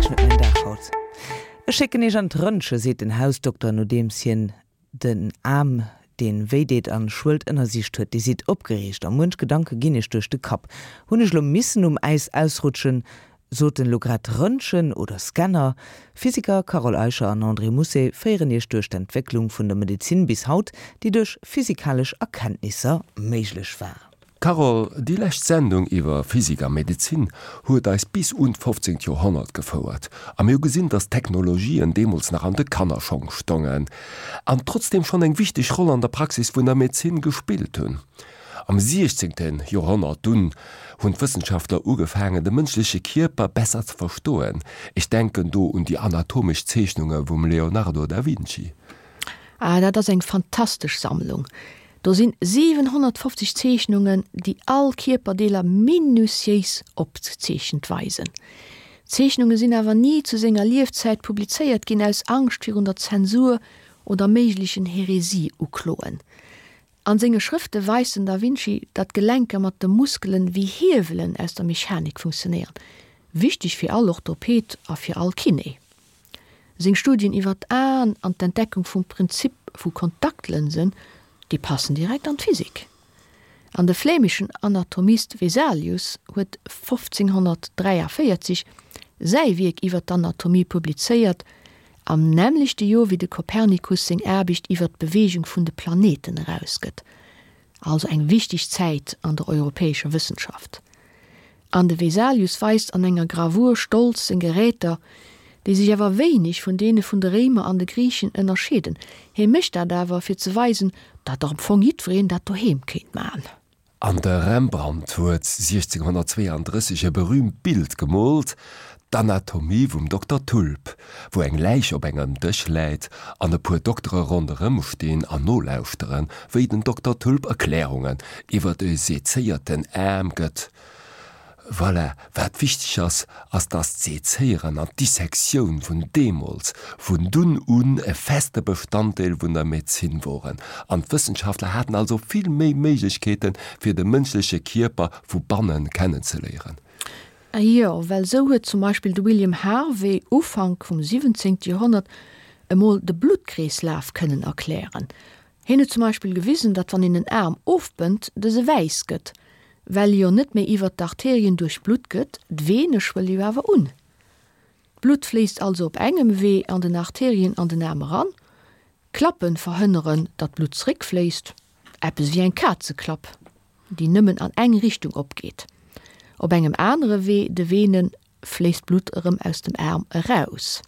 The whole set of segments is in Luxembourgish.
Wierklech net mäin Dag haut. Ech schécken iech an d'Röntge, seet den Hausdokter, nodeems hien den Aarm, deen wéi deet an schwëllt, ënnersicht huet. Dir sidd opgereegt a muench Gedanke ginn iech duerch de Kapp. Hunn ech lo missen um Äis ausrutschen? Sot en lo grad Röntgen oder Scanner? Physiker Carole Eicher an André Mousset féieren iech duerch d'Entwécklung vun der Medezin bis haut, déi duerch physikalesch Erkenntnisser méiglech war. Carole, déi lescht Sendung iwwer Physik a Medezin huet eis bis un d'fofzéngt Joerhonnert gefouert a mir hu gesinn, datt d'Technologien deemools nach an de Kannerschong stongen an trotzdeem schonn eng wichteg Roll an der Praxis vun der Medezin gespillt hunn. Am siechzéngte Joerhonnert dunn hunn d'Wëssenschaftler ugefaangen, de mënschleche Kierper besser ze verstoen, ech denken do un déi anatomesch Zeechnunge vum Leonardo da Vinci. Ah, dat ass eng fantastesch Sammlung! Do sinn 750 Zeechnungen, déi all Kierperdeeler minutiéis opgezeechent weisen. D'Zeechnunge sinn awer ni zu senger Liefzäit publizéiert ginn, aus Angscht virun der Zensur oder méiglechen Heresie-Ukloen. An senge Schrëfte weist den Da Vinci, datt d'Gelenker mat de Muskelen wéi Hiewelen aus der Mechanik funktionéieren, wichteg fir all Orthoped a fir all Kiné. Seng Studien iwwer d'Aen an d'Entdeckung vum Prinzip vu Kontaktlënsen, déi passen direkt an d'Physik. An de flämischen Anatomist Vesalius huet 1543 säi Wierk iwwer d'Anatomie publizéiert, am nämmlechte Joer wéi de Kopernikus seng Aarbecht iwwer d'Beweegung vun de Planeten erausgëtt, also eng wichteg Zäit an der europäescher Wëssenschaft. An de Vesalius weist an enger Gravur stolz seng Geräter, déi sech awer wéineg vun deene vun de Réimer an de Griichen ënnerscheeden. Hie mécht dat awer, fir ze weisen, datt am Fong jiddwereen dat doheem kéint man. An de Rembrandt huet 1632 e berüümt Bild gemoolt, d'Anatomie vum Dokter Tulp, wou eng Läich op engem Dësch läit an e puer Doktere ronderëm stinn an nolauschteren, wéi den Dokter Tulp Erklärungen iwwer e sezéierten Aarm gëtt. Voilà, wat wichteg ass, ass dass d'Sezéieren an d'Dissektioun vun deemools, vun dunn un e feste Bestanddeel vun der Medezin woren an d'Wëssenschaftler haten also vill méi Méiglechkeeten, fir de mënschleche Kierper vu bannen kennenzeléieren. Jo, well sou huet zum Beispill de William Harvey Ufank vum 17. Joerhonnert emol de Bluttkreeslaf kënnen erklären. Hien huet zum Beispill gewisen, datt wann een en Aarm ofbënnt, dëse wäiss gëtt, well e jo net méi iwwert d'Arterien duerchblutt gëtt, d'Vene schwëlle jo awer un. D'Blutt fléisst also op engem Wee an den Arterien an den Aarm eran, d'Klappe verhënneren, datt d'Blutt zeréckfléisst, eppes wéi eng Kazeklapp, déi nëmmen an eng Richtung opgeet. Op engem anere Wee, de Venen, fléisst d'Blutt erëm aus dem Aarm eraus.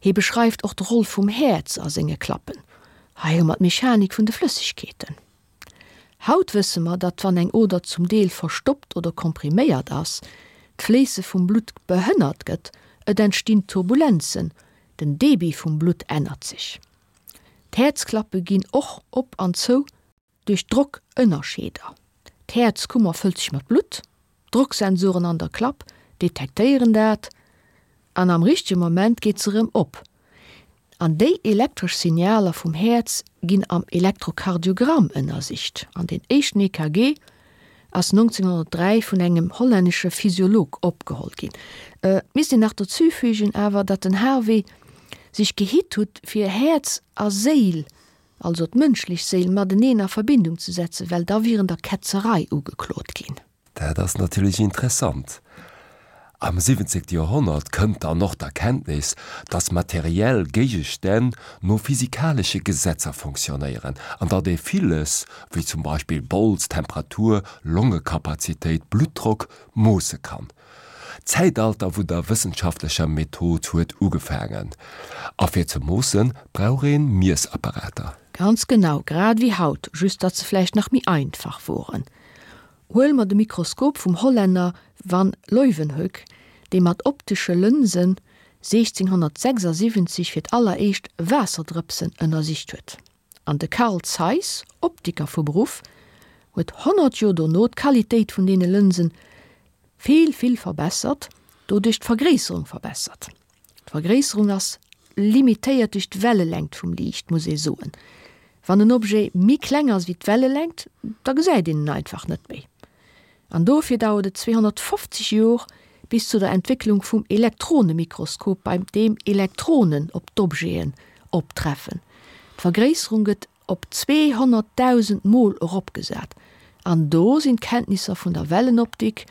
Hie beschreift och d'Roll vum Häerz a senge Klappen. Hei hu mer d'Mechanik vun de Flëssegkeeten. Haut wësse mer, datt wann eng Oder zum Deel verstoppt oder kompriméiert ass, d'Fléisse vum Blutt behënnert gëtt, et entstinn Turbulenzen, den Debit vum Blutt ännert sech. D'Häerzklappe ginn och op an zou. Duerch Drockënnerscheeder, D'Häerzkummer fëllt sech mat Blutt, d'Drocksensoren an der Klapp detektéieren dat an am richtege Moment geet se erëm op. An déi elektresch Signaler vum Häerz ginn am Elektrokardiogramm ënnersicht. An deen éischten EKG ass 1903 vun engem hollännesche Physiolog opgeholl ginn. Et misst een nach dozüfügen awer, datt den Harvey sech gehitt hutt fir Häerz a Séil also d'mënschlech Séil, mateneen a Verbindung ze setzen, well da wier en der Ketzerei ugeklot ginn. Dat ass natierlech interessant. Am 17. Joerhonnert kënnt dann och d'Erkenntnis, datt materiell Géigestänn no physikalesche Gesetzer fonctionnéieren an datt ee villes, wéi zum Beispill Bols, Temperatur, Longekapazitéit, Bluttdrock, moosse kann. D'Zäitalter vun der wëssenschaftlecher Method huet ugefaangen. A fir ze moossen, brauch een Miessapparater. Ganz genau, grad ewéi haut, just datt se vläicht nach méi einfach woren. Huele mer de Mikroskop vum Hollänner Van Leeuwenhoek, dee mat optesche Lënsen 1676 fir d'alleréischt Waasserdrëpsen ënnersicht huet. An de Carl Zeiss, Optiker vu Beruff, huet 100 Joer dono d'Qualitéit vun deene Lënsen vill, vill verbessert, doduerch d'Vergréisserung verbessert. D'Vergréisserung ass limitéiert duerch d'Wellelängt vum Liicht, muss ee soen. Wann en Objet méi kleng ass wéi d'Wellelängt, da gesäit een en einfach net méi. An dofir dauert et 250 Jor, bis zu der Entwécklung vum Elektronemikroskop, beim deem Elektronen op d'Objeten optreffen. D'Vergréisserung gëtt op 200.000 Mol eropgesat an do sinn d'Kenntnisser vun der Wellenoptik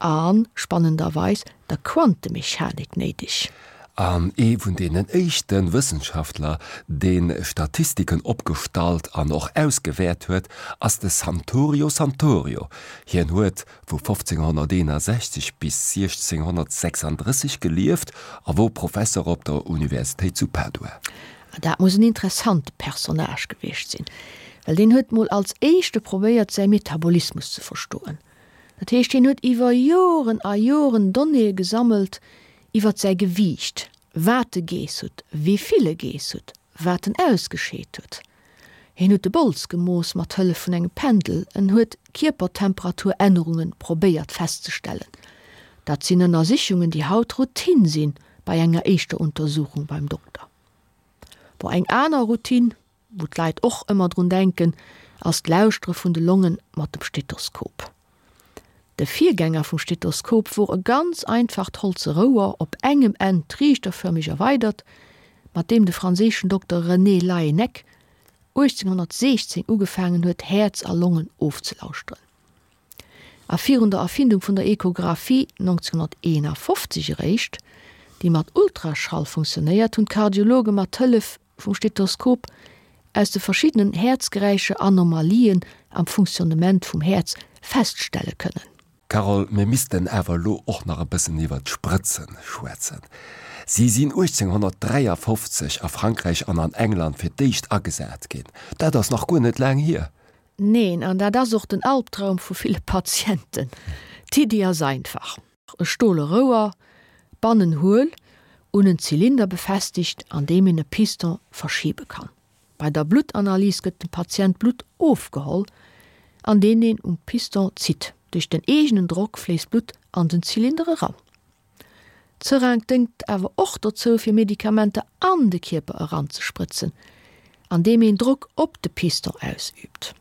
a, spannenderweis, der Quantemechanik néideg. An ee vun deenen éischte Wëssenschaftler, dee Statistiken opgestallt an och ausgewäert huet, ass de Santorio Santorio. Hien huet vu 1561 bis 1636 gelieft a wor Professer op der Universitéit zu Padua. Dat muss en interessante Personnage gewiescht sinn, well deen huet mol als éischte probéiert säi Metabolismus ze verstoen. Dat heescht, hien huet iwwer Joren a Joren Donnéeë gesammelt iwwert säi Gewiicht, wat e geess huet, wéi vill e geess huet, wat en ausgescheet huet. Hien huet de Bols gemooss mat Hëllef vun engem Pendel, en huet Kierpertemperaturännerunge probéiert festzestellen. Dat sinn Ënnersichungen, déi haut Routine sinn bei enger éischter Untersuchung beim Dokter. Bon, eng aner Routine, wou d'Leit och ëmmer drun denken, ass d'Lauschtere vun de Longe mat dem Stethoskop. De Virgänger vum Stethoskop wor e ganz einfacht holze Rouer, op engem Enn triichterfërmeg erweidert, mat deem de franséischen Dokter René Laennec 1816 ugefaangen huet, Häerz a Longen ofzelauschteren. A virun der Erfindung vun der Echographie 1951 eréischt, déi mat Ultraschall funktionéiert, hunn d'Kardiologe mat Hëllef vum Stethoskop aus de verschiddenen Häerzgeräischer Anomalien am Funktionnement vum Häerz feststelle kënnen. Carole, mir missten awer elo och nach e bëssen iwwer d'Sprëtzen schwätzen. Si sinn 1853 a Frankräich an an England fir d'éischt agesat ginn. Dat ass nach guer net laang hier. Neen, an dat ass och den Albtraum vu ville Patienten. D'Iddi ass einfach. E stole Rouer, bannen huel, un en Zylinder befestegt, an deem een e Piston verschibe kann. Bei der Bluttanalys gëtt dem Patient Blutt ofgeholl, an deen een um Piston zitt. Duerch den eegenen Drock fléisst Blutt an den Zylinder eran. D'Seringue déngt awer och dozou, fir Medikamenter an de Kierper eranzesprëtzen, andeem een Drock op de Piston ausüübt.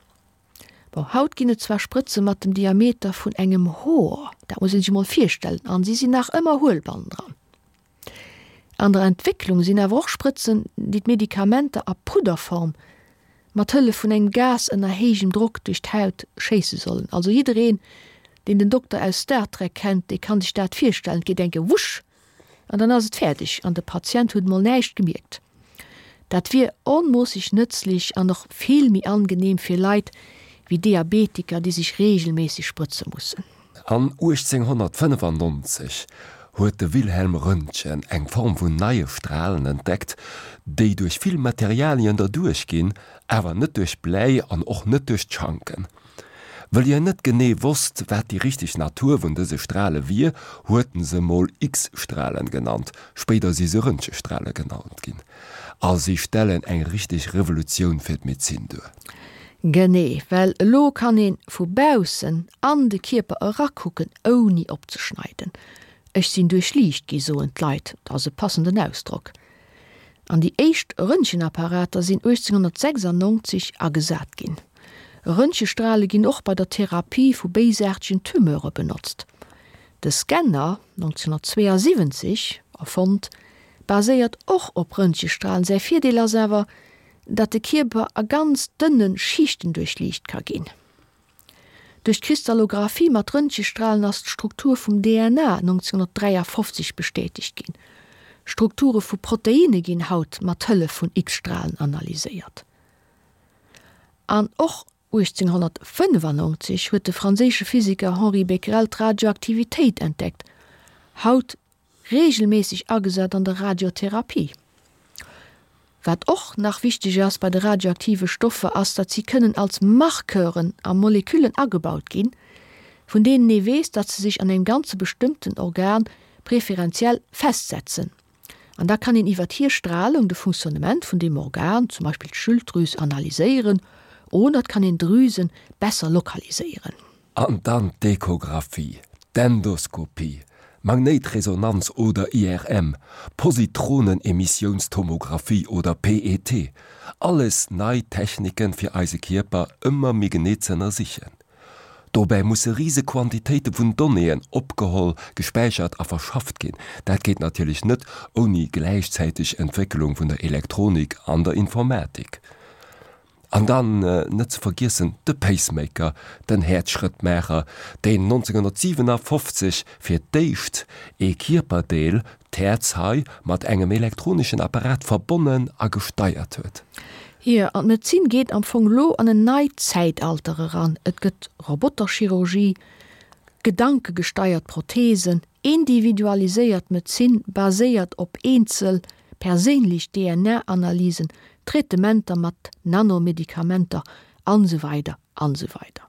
Bon, haut ginn et zwar Sprëtze mat dem Diameter vun engem Hoer, dat muss een sech emol virstellen, an si sinn nach ëmmer huel bannendran. An der Entwécklung sinn awer och Sprëtzen, déi d'Medikamenter a Pudderform mat Hëllef vun engem Gas ënner héijem Drock duerch d'Haut schéisse sollen. Also jiddereen, deen den Dokter aus Star Trek kennt, dee kann sech dat virstellen, et geet eng Kéier wusch! An dann ass et fäerdeg an de Patient huet mol näischt gemierkt. Dat wier onmoosseg nëtzlech an och vill méi angeneem fir Leit wéi Diabetiker, déi sech reegelméisseg sprëtze mussen. An 1895 huet de Wilhelm Röntgen eng Form vun neie Stralen entdeckt, déi duerch vill Materialien derduerch ginn, awer net duerch Bläi an och net duerch d'Schanken. Wëll hien net genee wosst, wat déi richteg Natur vun dëse Strale wier, huet en se mol X-Stralen genannt, spéider si se Röntgestrale genannt ginn, a si stellen eng richteg Revolutioun fir d'Medezin duer. Genee, well elo kann een vu baussen an de Kierper erakucken ouni opzeschneiden. Ech sinn duerchliicht gi soen d'Leit, dat ass e passenden Ausdrock. An déi éischt Röntgenapparater sinn 1896 agesat ginn. Röntgestrale ginn och bei der Therapie vu béisaartegen Tumeure benotzt. De Scanner, 1972 erfonnt, baséiert och op Röntgestralen. Säi Virdeel ass awer, datt de Kierper a ganz dënne Schichten duerchliicht ka ginn. Duerch d'Kristallographie mat Röntgestralen ass d'Struktur vum DNA 1953 bestätegt ginn. Strukture vu Proteinne ginn haut mat Hëllef vun X-Stralen analyséiert. An och 1895 huet de franséische Physiker Henri Becquerel d'Radioaktivitéit entdeckt, haut reegelméisseg agesat an der Radiotherapie. Wat och nach wichteg ass bei de radioaktive Stoffer ass, datt si kënnen als Marqueuren a Moleküllen agebaut ginn, vun deenen ee weess, datt se sech an engem ganze bestëmmten Organ preferenziell festsetzen. An da kann een iwwert hir Stralung de Funktionnement vun deem Organ, zum Beispill d'Schilddrüs, analyséieren oder et kann een Drüse besser lokaliséieren. An dann d'Echographie, d'Endoskopie, Magnéitresonanz oder IRM, Positronenemissionstomographie oder PET, alles nei Techniken fir eise Kierper ëmmer méi genee z'ënnersichen. Dobäi musse rise Quantitéite vun Donnéeën opgeholl, gespäichert a verschafft ginn. Dat geet natierlech net ouni gläichzäiteg Entwécklung vun der Elektronik an der Informatik. An dann net ze vergiessen de Pacemaker, den Häerzschrëttmaacher, deen 1957 fir d'éischt ee Kierperdeel, d'Häerz hei, mat engem elektroneschen Apparat verbonnen a gesteiert huet. Jo, an d'Medezin geet am Fong elo an en neit Zäitalter eran. Et gëtt Roboterchirurgie, gedankegesteiert Prothesen, individualiséiert Medezin baséiert op eenzel perséinlech DNA-Analysen, Traitementer mat Nanomedikamenter an esou weider an esou weider.